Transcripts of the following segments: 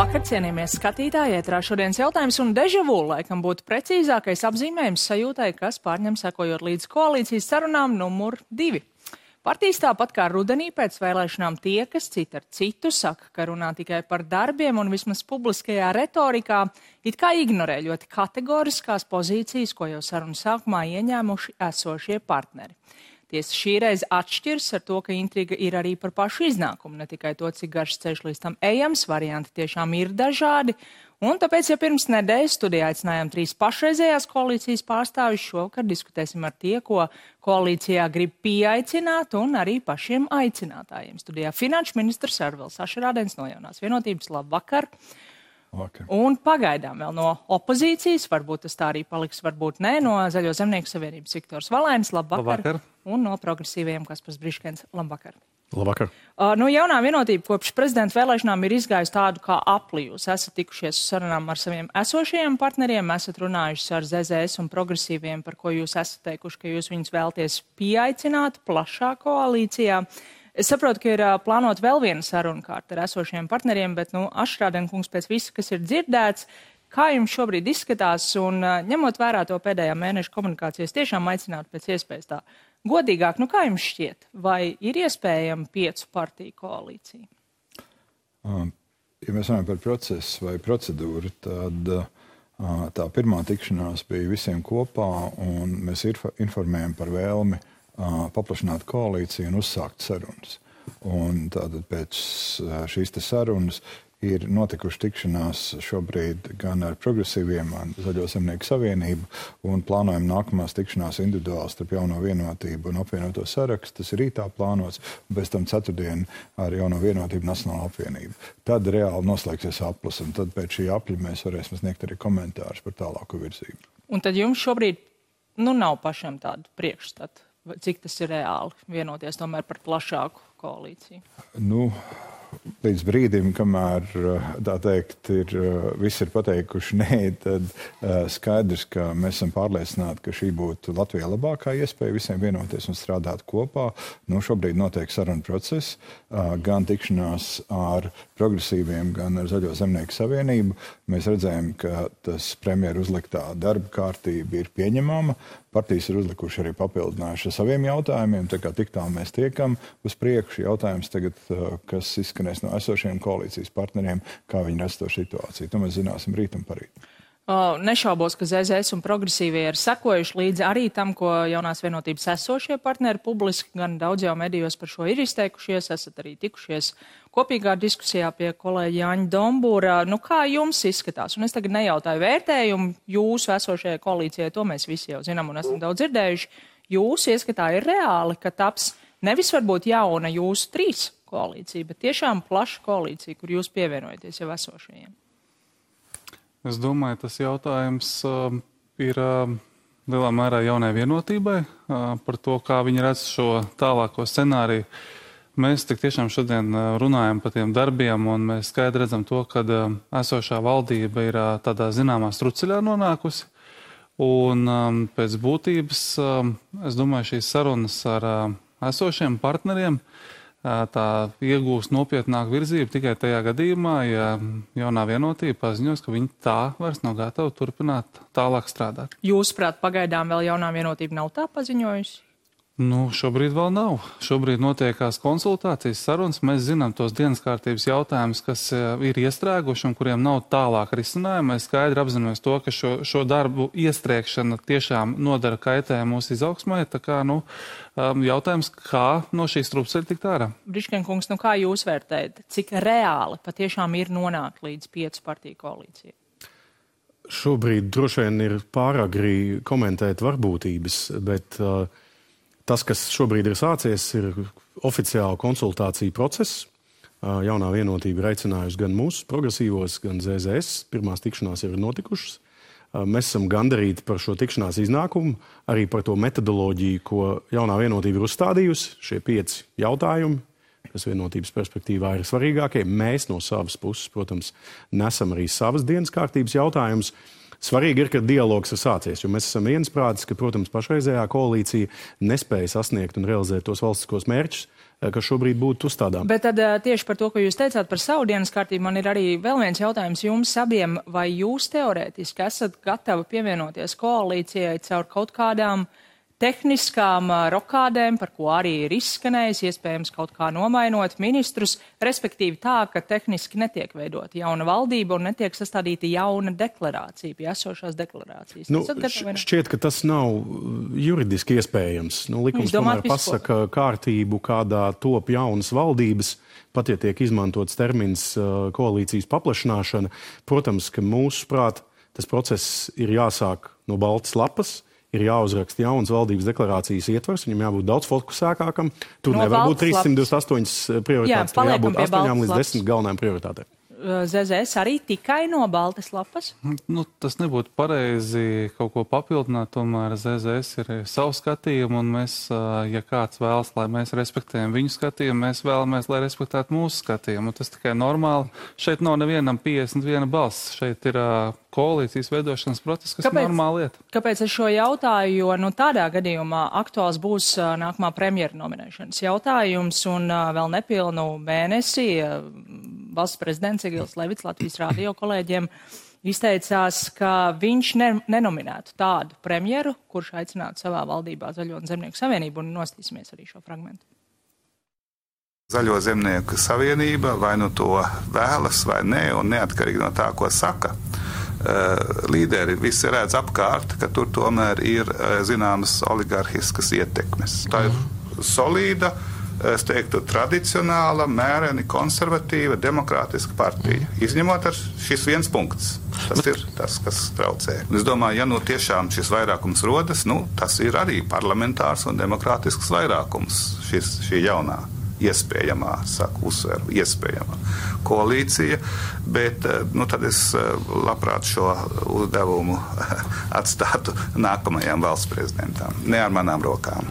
Labvakar, cienījamie skatītāji, ētrā šodienas jautājums un dežavu, laikam būtu precīzākais apzīmējums sajūtai, kas pārņem sekojot līdz koalīcijas sarunām numur 2. Partijas tāpat kā rudenī pēc vēlēšanām tiekas cita ar citu, saka, ka runā tikai par darbiem un vismaz publiskajā retorikā it kā ignorē ļoti kategoriskās pozīcijas, ko jau sarunu sākumā ieņēmuši esošie partneri. Tiesa šī reize atšķirs ar to, ka intriga ir arī par pašu iznākumu, ne tikai to, cik garš ceļš līdz tam ejams, varianti tiešām ir dažādi. Un tāpēc, ja pirms nedēļas studijā aicinājām 3 pašreizējās koalīcijas pārstāvjus, šovakar diskutēsim ar tie, ko koalīcijā grib pieaicināt un arī pašiem aicinātājiem. Studijā finanšu ministrs Arvils Ašerādens no Jaunās vienotības. Labvakar! Vakar. Un pagaidām vēl no opozīcijas, varbūt tas tā arī paliks, varbūt nē, no Zaļo zemnieku savienības Viktors Valēnis. Labvakar! Un no progresīvajiem Kaspars Briškens. Labvakar! Labvakar! No Jaunā vienotība kopš prezidenta vēlēšanām ir izgājusi tādu kā apli. Jūs esat tikušies uz sarunām ar saviem esošajiem partneriem, esat runājuši ar ZZS un progresīviem, par ko jūs esat teikuši, ka jūs viņus vēlties pieaicināt plašā koalīcijā. Es saprotu, ka ir plānot vēl viena saruna kārta ar esošajiem partneriem, bet, Ašerādena kungs, pēc visa, kas ir dzirdēts, kā jums šobrīd izskatās un ņemot vērā to pēdējā mēneša komunikācijas, tiešām aicināt pēc iespējas tā godīgāk, kā jums šķiet, vai ir iespējama 5 partiju koalīcija? Ja mēs runājam par procesu vai procedūru, tad tā pirmā tikšanās bija visiem kopā, un mēs informējam par vēlmi paplašināt koalīciju un uzsākt sarunas. Un tātad pēc šīs sarunas ir notikuši tikšanās šobrīd gan ar progresīviem, gan Zaļo zemnieku savienību, un plānojam nākamās tikšanās individuāli starp Jauno vienotību un apvienoto sarakstu. Tas ir rītā plānots, un pēc tam ceturtdien ar Jauno vienotību Nacionālo apvienību. Tad reāli noslēgsies aplis, un tad pēc šī apļa mēs varēsim sniegt arī komentārus par tālāku virzību. Un tad jums šobrīd nav pašam tādu priekšstatu? Cik tas ir reāli vienoties tomēr par plašāku koalīciju? Līdz brīdim, kamēr, tā teikt, visi ir pateikuši nē, tad skaidrs, ka mēs esam pārliecināti, ka šī būtu Latvijā labākā iespēja visiem vienoties un strādāt kopā. Šobrīd notiek saruna process, gan tikšanās ar progresīviem, gan ar Zaļo zemnieku savienību. Mēs redzējām, ka tas premjeru uzliktā darba kārtība ir pieņemama. Partijas ir uzlikuši arī papildinājuši ar saviem jautājumiem, tā kā tik tālu mēs tiekam uz priekšu. Jautājums tagad, kas izskanēs no esošiem koalīcijas partneriem, kā viņi redz to situāciju. To mēs zināsim rīt un parīt. Nešaubos, ka ZZS un progresīvie ir sekojuši līdzi arī tam, ko Jaunās vienotības esošie partneri publiski, gan daudz jau medijos par šo ir izteikušies, esat arī tikušies kopīgā diskusijā pie kolēģa Jāņa Dombūra. Kā jums izskatās? Un es tagad nejautāju vērtējumu jūsu esošajai koalīcijai, to mēs visi jau zinām un esam daudz dzirdējuši. Jūsu ieskatā ir reāli, ka taps nevis varbūt jauna jūsu 3 koalīcija, bet tiešām plaša koalīcija, kur jūs pievienojaties jau esošajiem? Es domāju, tas jautājums ir lielā mērā Jaunai vienotībai par to, kā viņi redz šo tālāko scenāriju. Mēs tik tiešām šodien runājam par tiem darbiem, un mēs skaidri redzam to, ka esošā valdība ir tādā zināmā struceļā nonākusi. Un pēc būtības, es domāju, šīs sarunas ar esošiem partneriem tā iegūs nopietnāku virzību tikai tajā gadījumā, ja Jaunā vienotība paziņos, ka viņi tā vairs nav gatavi turpināt tālāk strādāt. Jūsuprāt, pagaidām vēl Jaunā vienotība nav tā paziņojusi? Šobrīd vēl nav. Šobrīd notiekās konsultācijas sarunas. Mēs zinām tos dienas kārtības jautājumus, kas ir iestrēguši un kuriem nav tālāk risinājumi. Mēs skaidri apzināmies to, ka šo darbu iestrēgšana tiešām nodara kaitējumu mūsu izaugsmai. Tā kā, jautājums, kā no šīs strupceļa tikt ārā? Brišken kungs, kā jūs vērtējat, cik reāli patiešām ir nonākt līdz 5 partiju koalīcijai? Šobrīd droši vien ir pāragri komentēt varbūtības, bet tas, kas šobrīd ir sācies, ir oficiāla konsultācija process. Jaunā vienotība ir aicinājusi gan mūsu progresīvos, gan ZZS. Pirmās tikšanās ir notikušas. Mēs esam gandarīti par šo tikšanās iznākumu, arī par to metodoloģiju, ko Jaunā vienotība ir uzstādījusi. Šie 5 jautājumi, kas vienotības perspektīvā ir svarīgākie. Mēs no savas puses, protams, nesam arī savas dienas kārtības jautājumus. Svarīgi ir, ka dialogs ir sācies, jo mēs esam viensprātis, ka, protams, pašreizējā koalīcija nespēja sasniegt un realizēt tos valstiskos mērķus, kas šobrīd būtu uzstādām. Bet tad tieši par to, ko jūs teicāt par savu dienas kārtību, man ir arī vēl viens jautājums jums abiem. Vai jūs teorētiski esat gatavi pievienoties koalīcijai caur kaut kādām tehniskām rokādēm, par ko arī ir izskanējis, iespējams kaut kā nomainot ministrus, respektīvi tā, ka tehniski netiek veidota jauna valdība un netiek sastādīta jauna deklarācija, pie esošās deklarācijas? Šķiet, ka tas nav juridiski iespējams. Likums tomēr pasaka kārtību, kādā top jaunas valdības, pat ja tiek izmantots termins koalīcijas paplašināšana. Protams, ka mūsuprāt tas process ir jāsāk no baltas lapas, ir jāuzraksta jaunas valdības deklarācijas ietvers, viņam jābūt daudz fokusētākam. Tur nevar būt 328 prioritātes, tur jābūt 8 līdz 10 galvenajām prioritātēm. ZZS arī tikai no baltas lapas? Tas nebūtu pareizi kaut ko papildināt, tomēr ZZS ir savu skatījumu, un mēs, ja kāds vēlas, lai mēs respektējam viņu skatījumu, mēs vēlamies, lai respektētu mūsu skatījumu. Tas tikai normāli. Šeit nav nevienam 51 balss. Šeit ir koalīcijas veidošanas process, kas ir normāla lieta. Kāpēc es šo jautāju? Jo tādā gadījumā aktuāls būs nākamā premjera nominēšanas jautājums, un vēl nepilnu mēnesi valsts prezidents Egils Levits Latvijas rādio kolēģiem izteicās, ka viņš nenominētu tādu premjeru, kurš aicinātu savā valdībā Zaļo un Zemnieku savienību, un nostīsimies arī šo fragmentu. Zaļo Zemnieku savienība vai nu to vēlas vai nē, un neatkarīgi no tā, ko saka līderi, visi redz apkārt, ka tur tomēr ir zināmas oligarhiskas ietekmes. Tā ir solīda, es teiktu, tradicionāla, mēreni konservatīva, demokrātiska partija. Izņemot ar šis viens punkts. Tas ir tas, kas traucē. Un es domāju, ja tiešām šis vairākums rodas, tas ir arī parlamentārs un demokrātisks vairākums, šī jaunā iespējamā, uzsveru, iespējamā koalīcija, bet tad es labprāt šo uzdevumu atstātu nākamajām valsts prezidentam. Ne ar manām rokām.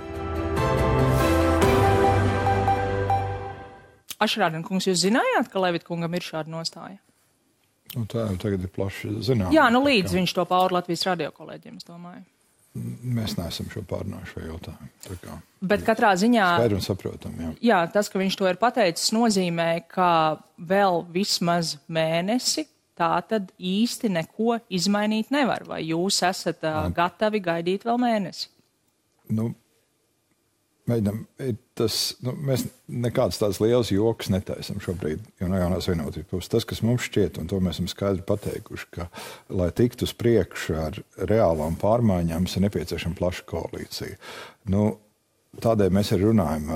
Ašrādien kungs, jūs zinājāt, ka Levita kungam ir šāda nostāja? Tā jau tagad ir plaši zināma. Jā, līdz viņš to pauda Latvijas radio kolēģiem, es domāju. Mēs neesam šo pārnājuši šo jautājumu. Bet katrā ziņā... Skaidri un saprotam, jā. Jā, tas, ka viņš to ir pateicis, nozīmē, ka vēl vismaz mēnesi tā tad īsti neko izmainīt nevar. Vai jūs esat gatavi gaidīt vēl mēnesi? Mēģinām, mēs nekādas tādas lielas jokas netaisam šobrīd, jo no jaunās vienotības puses. Tas, kas mums šķiet, un to mēs esam skaidri pateikuši, ka, lai tiktu uz priekšu ar reālām pārmaiņām, ir nepieciešama plaša koalīcija. Tādēļ mēs arī runājam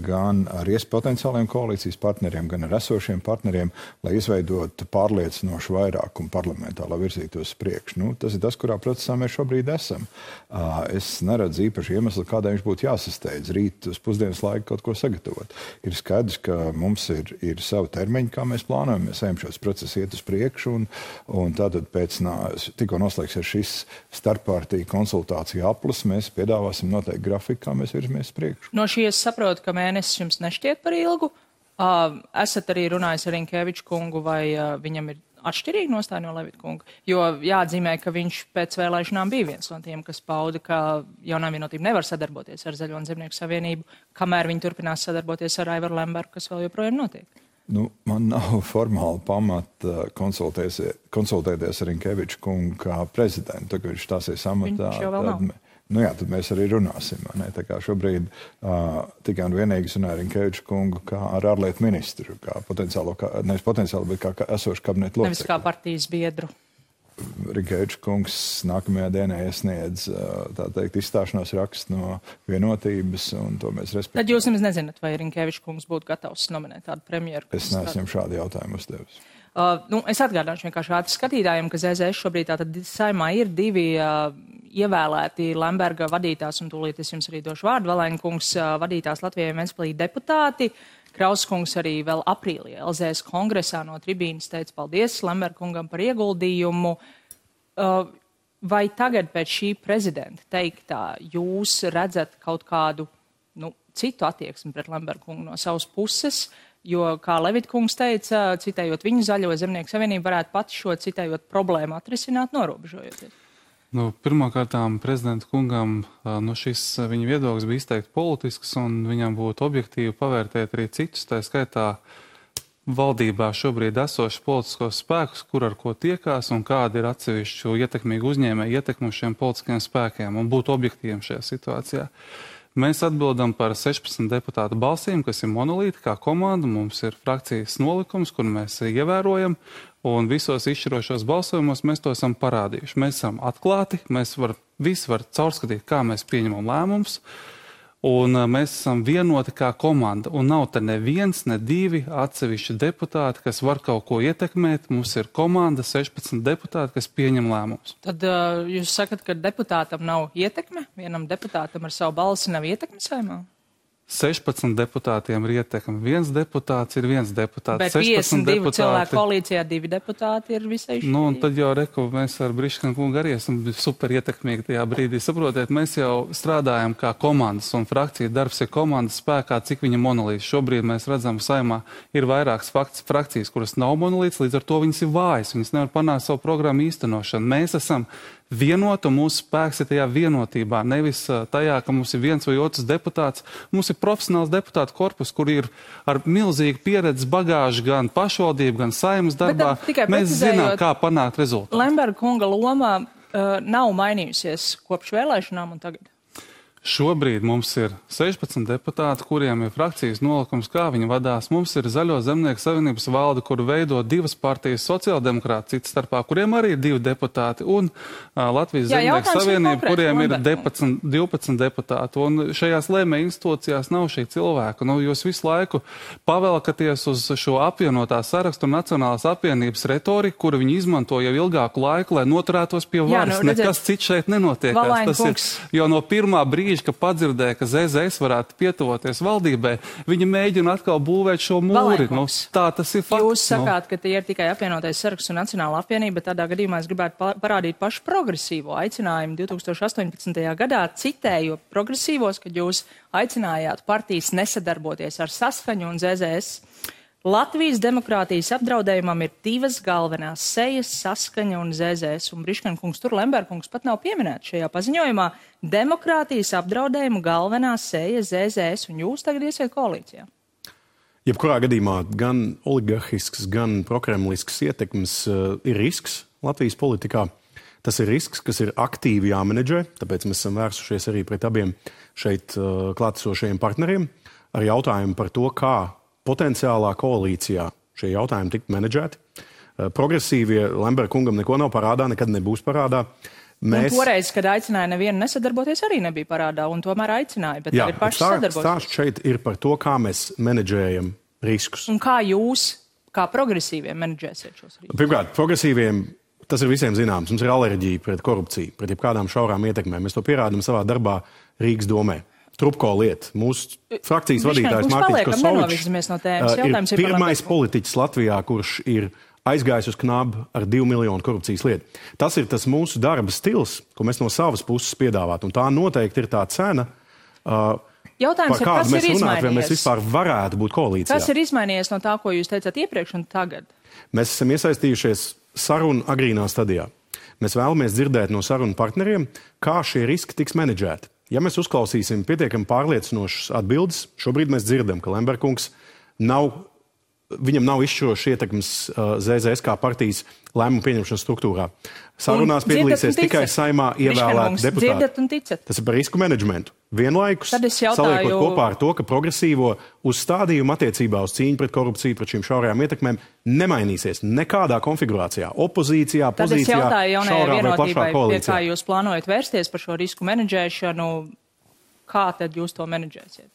gan ar potenciāliem koalīcijas partneriem, gan ar esošiem partneriem, lai izveidotu pārliecinošu vairākumu parlamentā, lai virzītos uz priekšu. Tas ir tas, kurā procesā mēs šobrīd esam. Es neredzu īpaši iemeslu, kādēļ viņš būtu jāsasteidz rīt uz pusdienas laiku kaut ko sagatavot. Ir skaidrs, ka mums ir savu termiņu, kā mēs plānojam. Mēs ejam šos procesus iet uz priekšu, un tātad pēc tikko noslēgsies šis starppartiju konsultāciju aplis, mēs piedāvāsim noteikti grafiku, kā mēs virzamies priekšu. No šī es saprotu, ka mēnesis jums nešķiet par ilgu. Esat arī runājis ar Rinkeviču kungu, vai viņam ir atšķirīga nostāja no Levita kunga? Jo jāatzīmē, ka viņš pēc vēlēšanām bija viens no tiem, kas pauda, ka jaunā vienotība nevar sadarboties ar Zaļo un Zemnieku savienību, kamēr viņi turpinās sadarboties ar Aivaru Lembergu, kas vēl joprojām notiek. Man nav formāli pamata konsultēties ar Rinkeviču kungu kā prezidentu, kad viņš stāsies amatā. Viņš jau vēl nav. Tad mēs arī runāsim. Tā kā šobrīd tikai un vienīgi runāju ar Rinkeviču kungu kā ar ārlietu ministru, kā nevis potenciāli, bet kā esošu kabinetu locekli. Nevis kā partijas biedru. Rinkeviču kungs nākamajā dienā iesniedz, izstāšanās rakstu no vienotības, un to mēs respektējam. Tad jūs nemaz nezināt, vai Rinkeviču kungs būtu gatavs nominēt tādu premjeru? Es neesmu šādu jautājumu uzdevis. Es atgādināšu vienkārši ātri skatītājiem, ka ZZS šobrīd tātad saimā ir divi ievēlēti Lemberga vadītās, un tūlīt es jums arī došu vārdu, Valēņa kungs vadītās Latvijai un Ventspilī deputāti. Kraus kungs arī vēl aprīlī LZS kongresā no tribīnas teica paldies Lemberga kungam par ieguldījumu. Vai tagad pēc šī prezidenta teiktā jūs redzat kaut kādu citu attieksmi pret Lemberga kungu no savas puses? Jo, kā Levitkungs teica, citējot viņu, Zaļo zemnieku savienību varētu pati šo citējot problēmu atrisināt, norobežojoties. Pirmkārtām prezidenta kungam šis viņa viedoklis bija izteikti politisks, un viņam būtu objektīvi pavērtēt arī citus, tā skaitā valdībā šobrīd esošas politiskos spēkus, kur ar ko tiekās un kāda ir atsevišķu ietekmīgu uzņēmēju ietekmu šiem politiskiem spēkiem, un būt objektīviem šajā situācijā. Mēs atbildam par 16 deputātu balsīm, kas ir monolīti kā komanda. Mums ir frakcijas nolikums, kur mēs ievērojam, un visos izšķirošos balsojumos mēs to esam parādījuši. Mēs esam atklāti, visi var caurskatīt, kā mēs pieņemam lēmumus, un mēs esam vienoti kā komanda. Un nav te neviens, ne divi atsevišķi deputāti, kas var kaut ko ietekmēt. Mums ir komanda, 16 deputāti, kas pieņem lēmumus. Tad jūs sakat, ka deputātam nav ietekme? Vienam deputātam ar savu balsi nav ietekme Saeimā? 16 deputātiem ir ietekme. Viens deputāts ir viens deputāts. Bet 52 cilvēku koalīcijā 2 deputāti ir visai šī. Un tad jau reku, mēs ar Briškanu kungu arī esam super ietekmīgi tajā brīdī. Saprotiet, mēs jau strādājam kā komandas, un frakcija darbs ir komandas spēkā, cik viņa monolīts. Šobrīd mēs redzam, Saeimā ir vairākas frakcijas, kuras nav monolīts, līdz ar to viņas ir vājas. Viņas nevar panākt savu programmu īstenošanu. Mēs esam vienota, mūsu spēks ir tajā vienotībā, nevis tajā, ka mums ir viens vai otrs deputāts. Mums ir profesionāls deputātu korpus, kur ir ar milzīgu pieredzi bagāžu gan pašvaldību, gan Saeimas darbā. Mēs zinām, kā panākt rezultātu. Lemberga kunga loma nav mainījusies kopš vēlēšanām un tagad? Šobrīd mums ir 16 deputāti, kuriem ir frakcijas nolikums, kā viņi vadās. Mums ir Zaļo zemnieku savienības valde, kuru veido 2 partijas, sociāldemokrāti cits starpā, kuriem arī ir 2 deputāti, un Latvijas zemnieku savienība, kuriem ir 12 deputāti. Un šajās lēmēju institūcijās nav šī cilvēka. Jūs visu laiku pavelkaties uz šo apvienotā sarakstu un Nacionālās apvienības retoriku, kuru viņi izmanto jau ilgāku laiku, lai noturētos pie varas. Nekas cits šeit nenotiekās. Tas ir, jo no pirmā brīža, ka padzirdēja, ka ZZS varētu pietuvoties valdībai, viņi mēģina atkal būvēt šo mūri. Tā tas ir fakts. Jūs sakāt, ka tie ir tikai apvienotais saraksts un Nacionāla apvienība, bet tādā gadījumā es gribētu parādīt pašu progresīvo aicinājumu 2018. gadā, citēju progresīvos, kad jūs aicinājāt partijas nesadarboties ar Saskaņu un ZZS. Latvijas demokrātijas apdraudējumam ir 2 galvenās sejas, Saskaņa un ZZS, un Briškana kungs, tur Lemberga kungs pat nav pieminēts šajā paziņojumā. Demokrātijas apdraudējuma galvenā seja ZZS, un jūs tagad iesiet koalīcijā. Jebkurā gadījumā gan oligarhisks, gan prokremlisks ietekmes ir risks Latvijas politikā. Tas ir risks, kas ir aktīvi jāmenedžē, tāpēc mēs esam vērsušies arī pret abiem šeit klātesošajiem partneriem ar jautājumu par to, kā potenciālā koalīcijā šie jautājumi tikt menedžēti. Progresīvie Lemberga kungam neko nav parādā, nekad nebūs parādā. Un toreiz, kad aicināja nevienu nesadarboties, arī nebija parādā, un tomēr aicināja, bet tagad paši sadarboties. Stāsts šeit ir par to, kā mēs menedžējam riskus. Un kā jūs, kā progresīviem, menedžēsiet šos riskus? Pirmkārt, progresīviem tas ir visiem zināms. Mums ir alerģija pret korupciju, pret jebkādām šaurām ietekmēm. Mēs to pierādām savā darbā Rīgas domē. Trupko lieta. Mūsu frakcijas vadītājs Mārtiņš Kosovičs ir pirmais politiķis Latvijā, kurš ir aizgājis uz knabu ar 2 miljonu korupcijas lietu. Tas ir tas mūsu darba stils, ko mēs no savas puses piedāvāt. Un tā noteikti ir tā cena, jautājums par kādu mēs runāt, vai mēs vispār varētu būt koalīcijā. Kas ir izmainījies no tā, ko jūs teicāt iepriekš un tagad? Mēs esam iesaistījušies sarunu agrīnā stadijā. Mēs vēlamies dzirdēt no sarunu partneriem, kā šie riski tiks menedžēti. Ja mēs uzklausīsim pietiekami pārliecinošas atbildes, šobrīd mēs dzirdam, ka Lemberga kungs viņam nav izšķirošs ietekmes ZZS kā partijas lēmumu pieņemšanas struktūrā. Sarunās piedalīsies tikai Saeimā ievēlēti deputāti. Tas ir par risku menedžmentu. Vienlaikus saliekot kopā ar to, ka progresīvo uzstādījumu attiecībā uz cīņu pret korupciju, pret šīm šaurajām ietekmēm nemainīsies nekādā konfigurācijā. Opozīcijā, pozīcijā, šaurā vai plašā koalīcijā. Pie kā jūs plānojat vērsties par šo risku menedžēšanu, kā tad jūs to menedžēsiet?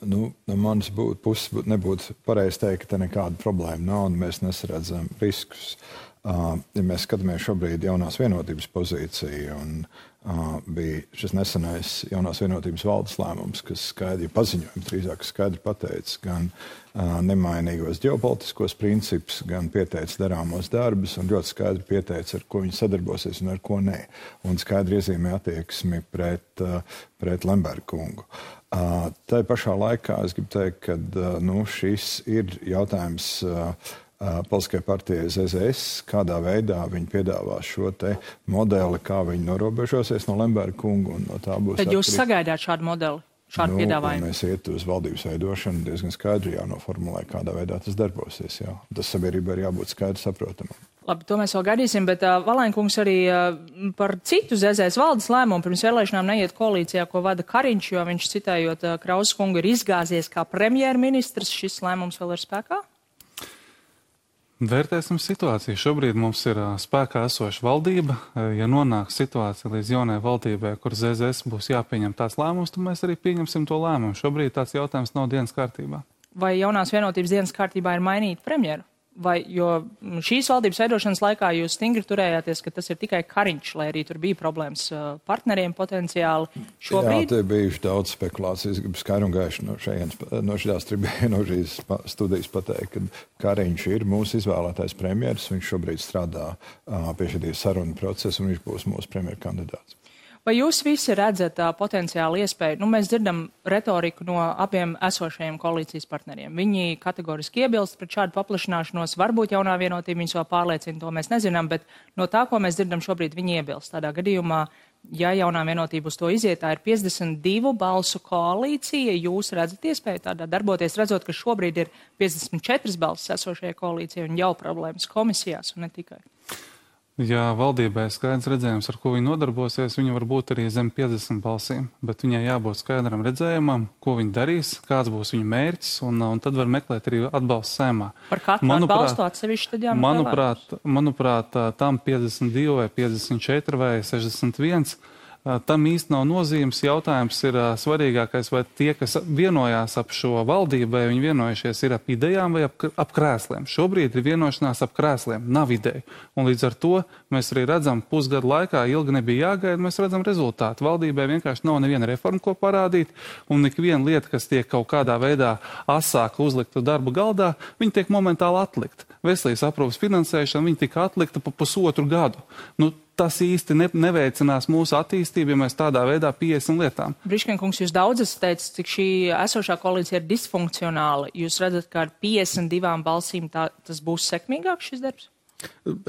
No manas puses nebūtu pareizi teikt, ka te nekāda problēma nav un mēs nesaredzam riskus. Ja mēs skatāmies šobrīd jaunās vienotības pozīciju, un bija šis nesenais jaunās vienotības valdes lēmums, kas skaidri paziņojums, drīzāk skaidri pateica gan nemainīgos ģeopolitiskos principus, gan pieteica darāmos darbus, un ļoti skaidri pieteica, ar ko viņi sadarbosies un ar ko nē. Un skaidri iezīmē attieksmi pret Lemberga kungu. Tā pašā laikā es gribu teikt, ka šis ir jautājums Politiskajai partijai ZZS, kādā veidā viņi piedāvās šo te modeli, kā viņi norobežosies no Lemberga kunga, un no tā būs. Tad jūs sagaidāt šādu modeli, šādu piedāvājumu? Mēs iet uz valdības veidošanu, diezgan skaidri jānoformulē, kādā veidā tas darbosies. Jā. Tas sabiedrībai ir jābūt skaidri saprotamam. Labi, to mēs vēl gaidīsim, bet Valainkungs arī par citu ZZS valdes lēmumu pirms vēlēšanām neiet koalīcijā, ko vada Kariņš, jo viņš, citējot Krausas kungu, ir izgāzies kā premjerministrs. Šis lēmums vēl ir spēkā? Vērtēsim situāciju. Šobrīd mums ir spēkā esoša valdība. Ja nonāks situācija līdz jaunai valdībai, kur ZZS būs jāpieņem tās lēmumus, tad mēs arī pieņemsim to lēmumu. Šobrīd tāds jautājums nav dienas kārtībā. Vai jaunās vienotības dienas kārtībā ir mainīt premjeru? Jo šīs valdības veidošanas laikā jūs stingri turējāties, ka tas ir tikai Kariņš, lai arī tur bija problēmas partneriem potenciāli. Šobrīd... Jā, te bijuši daudz spekulācijas, gribu skaidri un gaiši no šīs studijas pateikt, ka Kariņš ir mūsu izvēlētais premjeras, viņš šobrīd strādā pie šī sarunu procesa un viņš būs mūsu premjera kandidāts. Vai jūs visi redzat potenciāli iespēju? Mēs dzirdam retoriku no abiem esošajiem koalīcijas partneriem. Viņi kategoriski iebilst pret šādu paplašināšanos. Varbūt jaunā vienotība viņus vēl pārliecina, to mēs nezinām, bet no tā, ko mēs dzirdam šobrīd, viņi iebilst. Tādā gadījumā, ja jaunā vienotība uz to iziet, tā ir 52 balsu koalīcija. Jūs redzat iespēju tādā darboties, redzot, ka šobrīd ir 54 balsis esošajai koalīcijai un jau problēmas komisijās un ne tikai. Ja valdībai skaidrs redzējums, ar ko viņi nodarbosies, viņa var būt arī zem 50 balsīm, bet viņai jābūt skaidram redzējumam, ko viņi darīs, kāds būs viņa mērķis, un tad var meklēt arī atbalstu Saeimā. Par katru atbalstu atsevišķi tad jāmeklē? Manuprāt, tam 52 vai 54 vai 61. Tam īsti nav nozīmes. Jautājums ir svarīgākais, vai tie, kas vienojās ap šo valdību, vai viņi vienojušies ir ap idejām vai ap krēsliem. Šobrīd ir vienošanās ap krēsliem, nav ideju. Un līdz ar to mēs arī redzam, pusgadu laikā ilgi nebija jāgaida, mēs redzam rezultātu. Valdībai vienkārši nav neviena reforma, ko parādīt, un ikviena lieta, kas tiek kaut kādā veidā asāka uzlikta darba galdā, viņa tiek momentāli atlikta. Veselības aprūpes finansēšana, viņa tika atlikta pa pusotru gadu. Tas īsti neveicinās mūsu attīstību, ja mēs tādā veidā pieesim lietām. Briškenkungs, jūs daudz esat teicis, cik šī esošā koalīcija ir disfunkcionāla. Jūs redzat, ka ar 52 balsīm tas būs sekmīgāk šis darbs?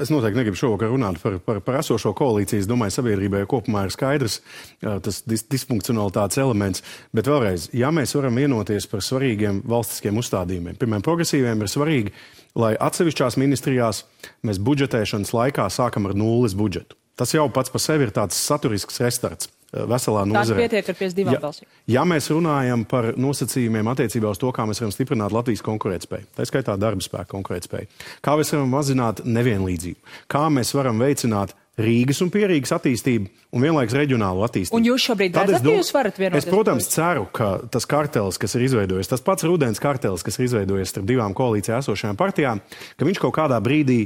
Es noteikti negribu šovakar runāt par esošo koalīciju. Es domāju, sabiedrībai kopumā ir skaidrs tas disfunkcionalitātes elements. Bet vēlreiz, ja mēs varam vienoties par svarīgiem valstiskiem uzstādījumiem, piemēram, progresīviem ir svarīgi, lai atsevišķās ministrijās mēs budžetēšanas laikā sākam ar nulles budžetu. Tas jau pats par sevi ir tāds saturisks restarts veselā nozarē. Tā pietiek ar 52 balsīm. Ja mēs runājam par nosacījumiem attiecībā uz to, kā mēs varam stiprināt Latvijas konkurētspēju, tā skaitā darba spēka konkurētspēju, kā mēs varam mazināt nevienlīdzību, kā mēs varam veicināt Rīgas un Pierīgas attīstību un vienlaiks reģionālu attīstību. Un jūs šobrīd redzat, ka jūs varat vienoties? Es, protams, ceru, ka tas kartelis, kas ir izveidojies, tas pats rudens kartelis, kas ir izveidojies starp divām koalīcijā esošajām partijām, ka viņš kaut kādā brīdī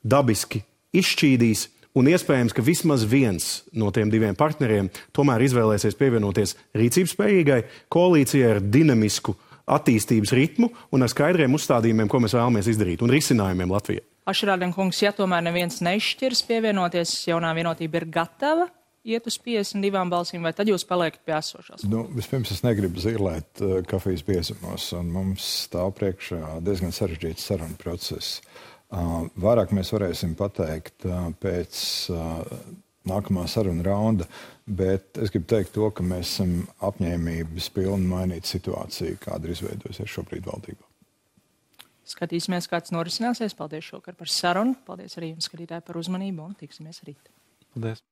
dabiski izšķīdīs. Un iespējams, ka vismaz viens no tiem diviem partneriem tomēr izvēlēsies pievienoties rīcības spējīgai koalīcijai ar dinamisku attīstības ritmu un ar skaidriem uzstādījumiem, ko mēs vēlamies izdarīt, un risinājumiem Latvijai. Ašrādenkungs, ja tomēr neviens neizšķirs pievienoties, jaunā vienotība ir gatava iet uz 52 balsīm, vai tad jūs paliekat pie esošās? Vispirms es negribu zīlēt kafijas biezumos, un mums stāv priekšā diezgan sarežģīts sarunu process. Vairāk mēs varēsim pateikt pēc nākamā saruna raunda, bet es gribu teikt to, ka mēs esam apņēmības pilni mainīt situāciju, kāda ir izveidojusies šobrīd valdībā. Skatīsimies, kāds norisināsies. Paldies šokar par sarunu. Paldies arī jums, skatītāji, par uzmanību un tiksimies rīt. Paldies.